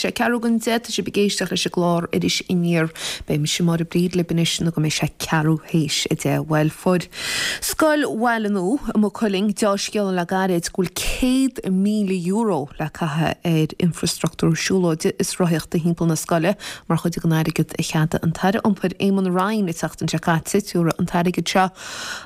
Tá sé ceathrú don 10, tá sibh ag éisteacht leis an gclár Iris Aniar. Beidh mise Máire Bríd libh anois nó go mbeidh sé ceathrú théis 10. Bhuel, fuair Scoil Bhaile Nua i Maigh Cuilinn deá-scéala le gairid go bhfuil €100,000 le caitheamh ar infreastruchtúr siúlóide is rothaíochta thimpeall na scoile mar chuid den airgead a cheadaigh an tAire Iompair Eamon Ryan an tseachtain seo caite. Tabharfaidh an t-airgead seo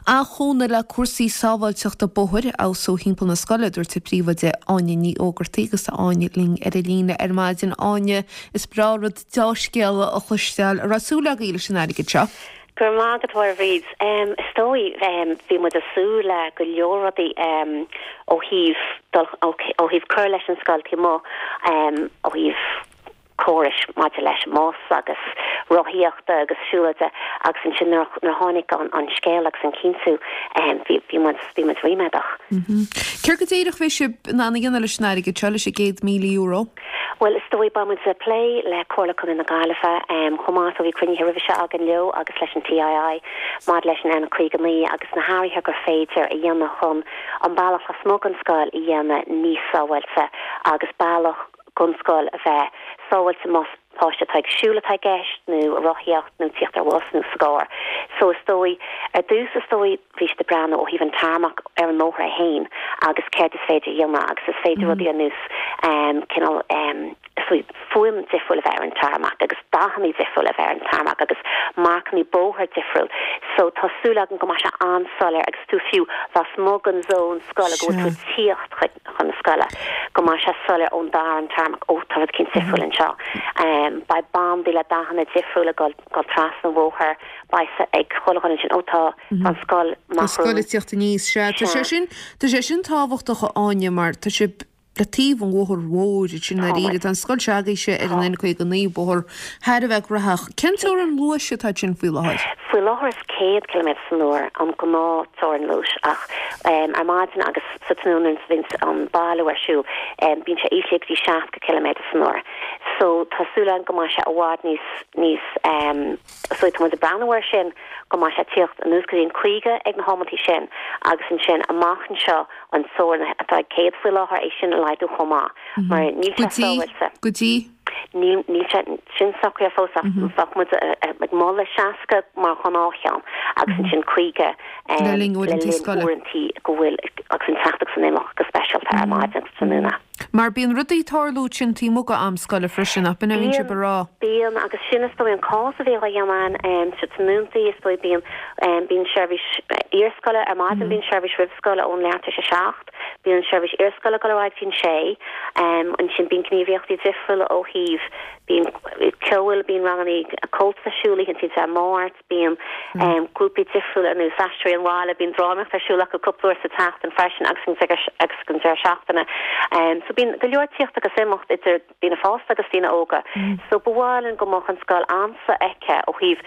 an-chúnamh le cúrsaí sábháilteachta bóthair a fheabhsú thimpeall na scoile, a dúirt an príomhoide Áine Ní Ógartaigh agus tá Áine linn ar an líne ar maidin. Áine, is breá rud deá-scéala a chloisteáil. An raibh súil agaibh leis an airgead seo? Go raibh maith agat, a Mháire Bhríd. Is dóigh, bhí muid ag súil le go leor rudaí ó thaobh dul, ó thaobh cur leis an scoil taobh amuigh, ó thaobh córais maidir leis an mbus agus rothaíochta agus siúlóide agus ansin nuair a tháinig an scéal agus an cinntiú, bhí, bhí muid, bhí muid ríméadach. Céard go díreach a bheidh sibh in ann a dhéanamh leis an airgead seo, leis an €100,000? Bhuel, is dóigh, beidh muid ag plé le Comhairle Contae na Gaillimhe chomh maith, so bhí cruinnithe roimhe seo againn leo agus leis an TII maidir leis an N59 agus na hathruithe gur féidir a dhéanamh chun an bealach lasmuigh den scoil a dhéanamh níos sábháilte agus bealach don scoil a bheith sábháilte más páiste atá ag siúl atá i gceist nó ag rothaíocht nó tíocht ar bhus nó sa gcarr. So is dóigh, ar dtús is dóigh bhí siad ag breathnú ó thaobh an tarmac ar an mbóthar é féin agus céard is féidir a dhéanamh agus is féidir rudaí ar nós cineál is dóigh fuaim difriúil a bheith ar an tarmac agus dathanna difriúil a bheith ar an tarmac agus marcanna bóthair difriúil. So tá súil agam go mbeidh sé an-soiléir agus tú fiú lasmuigh den zón scoile go bhfuil tú ag tíocht chuig chun na scoile, go mbeidh sé soiléir ón dara an tarmac, ó tá rud eicínt difriúil anseo. Beidh bandaí le dathanna difriúla ag dul dul trasna an bhóthair, beidh a fhios ag chuile dhuine ansin, ó tá tá an scoil Tá an scoil ag tíocht aníos, sea. Tá sé sin, tá sé sin tábhachtach a Áine mar tá sibh le taobh an bhóthair mhóir ansin i ndáiríre. Tá an scoil se'agaibhse ar an N59, bóthar thar a bheith gnóthach. Cén teorainn luais atá ansin faoi láthair? Faoi láthair is 100 ciliméadar san uair an gnáth teorainn luais ach ar maidin agus sa tráthnóna nuair a bhíonns an bailiú ar siúl bíonn sé íslithe go dtí 60 ciliméadar san uair. So tá súil againn go mbeidh sé i bhfad níos níos so tá muid ag breathnú air sin go mbeidh sé ag tíocht anuas go dtí an 50 ag na hamantaí sin agus ansin amach anseo an teorainn atá ag 100 faoi láthair é sin a laghdú chomh maith mar níl sé sábháilte. Go dtí? Níl níl sé sin socraithe fós ach bheadh muid ag moladh 60 mar ghnáthcheann agus ansin 50 Le linn uaireantaí scoile. uaireantaí go bhfuil agus an teacht agus an imeacht go speisialta ar maidin agus tráthnóna. Mar bíonn rudaí ag tarlú ansin taobh amuigh d'am scoile freisin, nach b'in a bhíonn sibh ag rá? Bíonn, agus sin is dóigh an cás a bhíonn á dhéanamh ann sa tráthnóntaí is dóigh bíonn bíonn seirbhís iarscoile ar maidin bíonn seirbhís roimh scoil ón leath tar éis a 7 Bíonn an seirbhís iarscoile ag dul ar aghaidh go dtí an sé. Ansin bíonn gníomhaíochtaí difriúla ó thaobh, bíonn ceol, bíonn ranganna Comhaltas ar siúl oícheantaí Dé Máirt, bíonn grúpaí difriúla ar nós Aisteoirí an Bhaile, bíonn drámaíocht ar siúl acu cúpla uair sa tseachtain freisin agus agus an deireadh seachtaine. So bíonn go leor tíocht agus imeacht idir daoine fásta agus daoine óga. So ba mhaith linn go mbeadh an scoil an-sofheicthe ó thaobh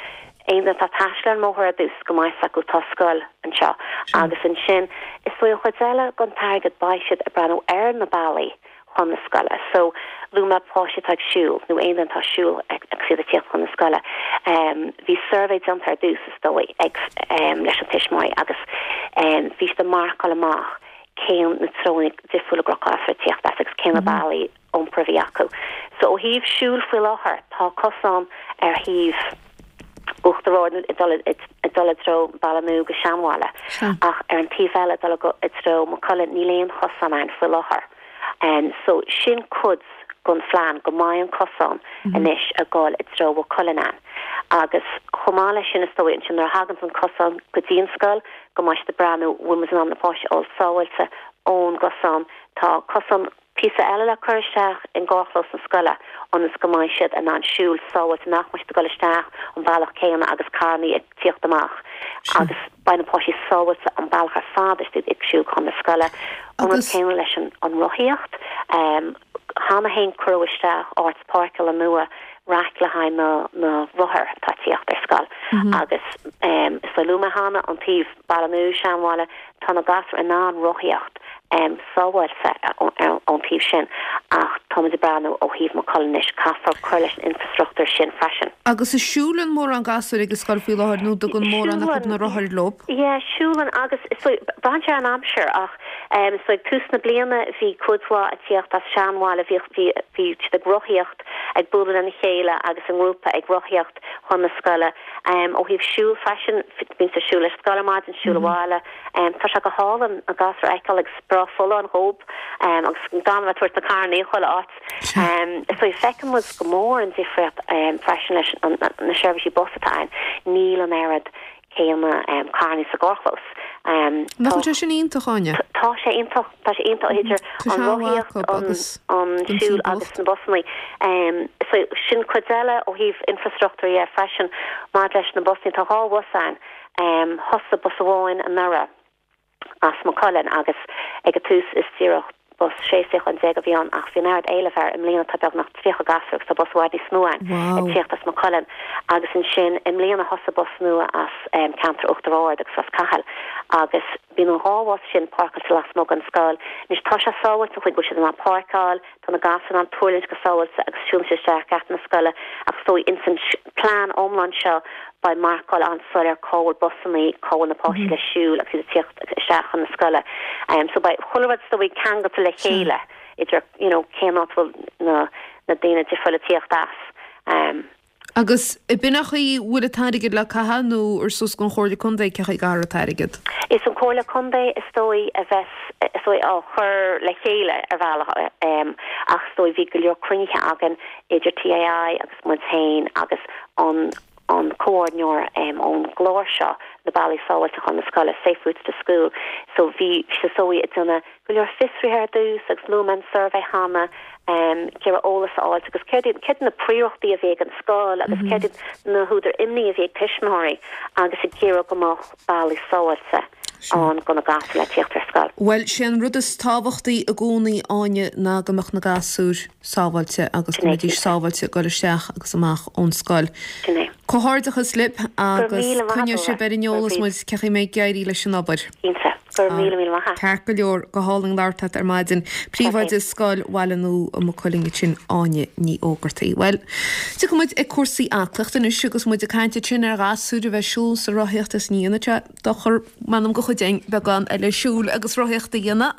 aon duine atá ag taisteal ar an mbóthar ar dtús go mbeidh fhios acu tá scoil anseo agus ansin is dóigh an chuid eile den t-airgead beidh siad ag breathnú ar na bealaí chun na scoile. So luaigh mé páistí atá ag siúl nó aon duine atá ag siúl agus iad ag tíocht chun na scoile. Bhí suirbhé déanta ar dtús is dóigh ag leis an tuismitheoirí agus bhí siad ag marcáil amach cén na treonna difriúla go raibh gasúir ag tíocht as agus cé na bealaí iompair a bhí acu. So ó thaobh siúil faoi láthair tá cosán ar thaobh Uachtar Ard ag dul ag dul i dtreo Baile Nua go Seanbhaile ach ar an taobh eile ag dul i dtreo Maigh Cuilinn níl aon chosán ann faoi láthair. So sin cuid den phlean go mbeidh an cosán anois ag dul i dtreo Mhaigh Cuilinn ann. Agus chomh maith leis sin is dóigh ansin nuair a thaganns an cosán go dtí an scoil go mbeidh siad ag breathnú bhfuil muid in ann na páistí a fháil sábháilte ón gcosán. Tá cosán Píosa eile le cur isteach i gcarrchlós na scoile ionas go mbeidh siad in ann siúl sábháilte, nach mbeidh siad ag dul isteach an bealach céanna agus carrannaí ag tíocht amach agus beidh na páistí sábháilte an bealach ar fad is iad ag siúl chun na scoile. An rud céanna leis an rothaíocht. Cheana féin cuireadh isteach áit páirceála nua raic le haghaidh na na rothair atá ag tíocht ar scoil agus is dóigh luaigh mé cheana an taobh Baile Nua, Seanbhaile, tá na gasúir in ann rothaíocht. Sábháilte ón taobh sin ach táimid ag breathnú ó thaobh Maigh Cuilinn anois, caithfear cur leis an infreastruchtúr sin freisin. Agus an siúlann mórán gasúir ag an scoil faoi láthair nó dtugann mórán acu na rothair leo? Yeah, siúlann agus is dóigh, braitheann sé ar an aimsir ach is dóigh ag tús na bliana bhí cuid mhaith ag tíocht as Seanbhaile, bhí, bhí, bhí siad ag rothaíocht, ag bualadh lena chéile agus i ngrúpa ag rothaíocht chun na scoile. Ó thaobh siúl freisin, bíonn siad ag siúl ar scoil ar maidin, siúl abhaile. Tá sé go hálainn na gasúir a fheiceáil agus breá folláin dhób agus gan a bheith ag tabhairt na carrannaí chuile áit. Is dóigh, feiceann muid go mór an difríocht freisin leis na seirbhísí bus atá ann. Níl an oiread céanna carrannaí sa gcarrchlós. Nach bhfuil sé sin iontach, Áine? Tá sé iontach, tá sé iontach idir an rothaíocht, an siúl agus na busannaí. So sin cuid eile ó thaobh infreastruchtúir dhe freisin maidir leis na busannaí. Tá 2 bhus ann. Thosaigh bus amháin anuraidh as Maigh Cuilinn agus ag an tús is díreach bus 16 suíochán a bhí ann ach bhí an oiread éilimh air. I mbliana tá beagnach 30 gasúr agus tá bus i bhfad níos mó ann ag tíocht as Maigh Cuilinn agus ansin i mbliana thosaigh bus nua as ceantar Uachtar Ard agus Ros Cathail agus bíonn an dhá bhus sin páirceáilte lasmuigh den scoil. Anois tá sé sábháilte an chaoi go bhfuil siad in ann páirceáil, Tá na gasúir in ann tuirlingt go sábháilte agus siúlann siad isteach geata na scoile ach is dóigh ins an plean iomlán seo beidh marcáil an-soiléir cá bhfuil busannaí, cá bhfuil na páistí le siúl agus iad ag tíocht isteach chun na scoile. So beidh chuile rud is dóigh ceangailte le chéile idir you know cén áit a bhfuil na na daoine difriúla ag tíocht as. Agus ab in an chaoi a bhfuil an t-airgead le caitheamh nó ar suas gon Chomhairle Contae cé chaoi a gcaithfear an t-airgead? Is an Comhairle Contae is dóigh a bheas is dóigh á chur le chéile ar bhealach ach is dóigh bhí go leor cruinnithe againn idir TII agus muid féin agus an an comhordaitheoir ón gclár seo na bealaí sábháilte chun na scoile, Safe Routes to School so bhí is dóigh ag déanamh go leor fiosruithe ar dtús agus luaigh mé an suirbhé cheana, ag iarraidh eolas a fháilt agus céard iad, céard iad na príorachtaí a bhí ag an scoil agus céard iad na húdair imní a bhí ag tuismitheoirí agus ag iarraidh go mbeadh bealaí sábháilte ann do na gasúir le tíocht ar scoil. Bhuel, sé an rud is tábhachtaí i gcónaí, Áine, ná go mbeadh na gasúir sábháilte agus go mbeidís sábháilte ag dul isteach agus amach ón scoil. Sin é. Comhghairdeachas libh agus coinneoidh sibh ar an eolas muid cé chaoi a mbeidh ag éirí leis an obair. Cinnte. Go raibh míle míle maith a't. Ceart go leor, go hálainn labhairt leat ar maidin. Príomhoide Scoil Bhaile Nua i Maigh Cuilinn ansin, Áine Ní Ógartaigh. Bhuel, tiocfaidh muid ag cúrsaí aclaíochta anois agus muid ag caint ansin ar ghasúir a bheith ag siúl is ag rothaíocht is ní dhéanfaidh sé dochar, m'anam do chuid againn beagán eile siúil agus rothaíochta a dhéanamh.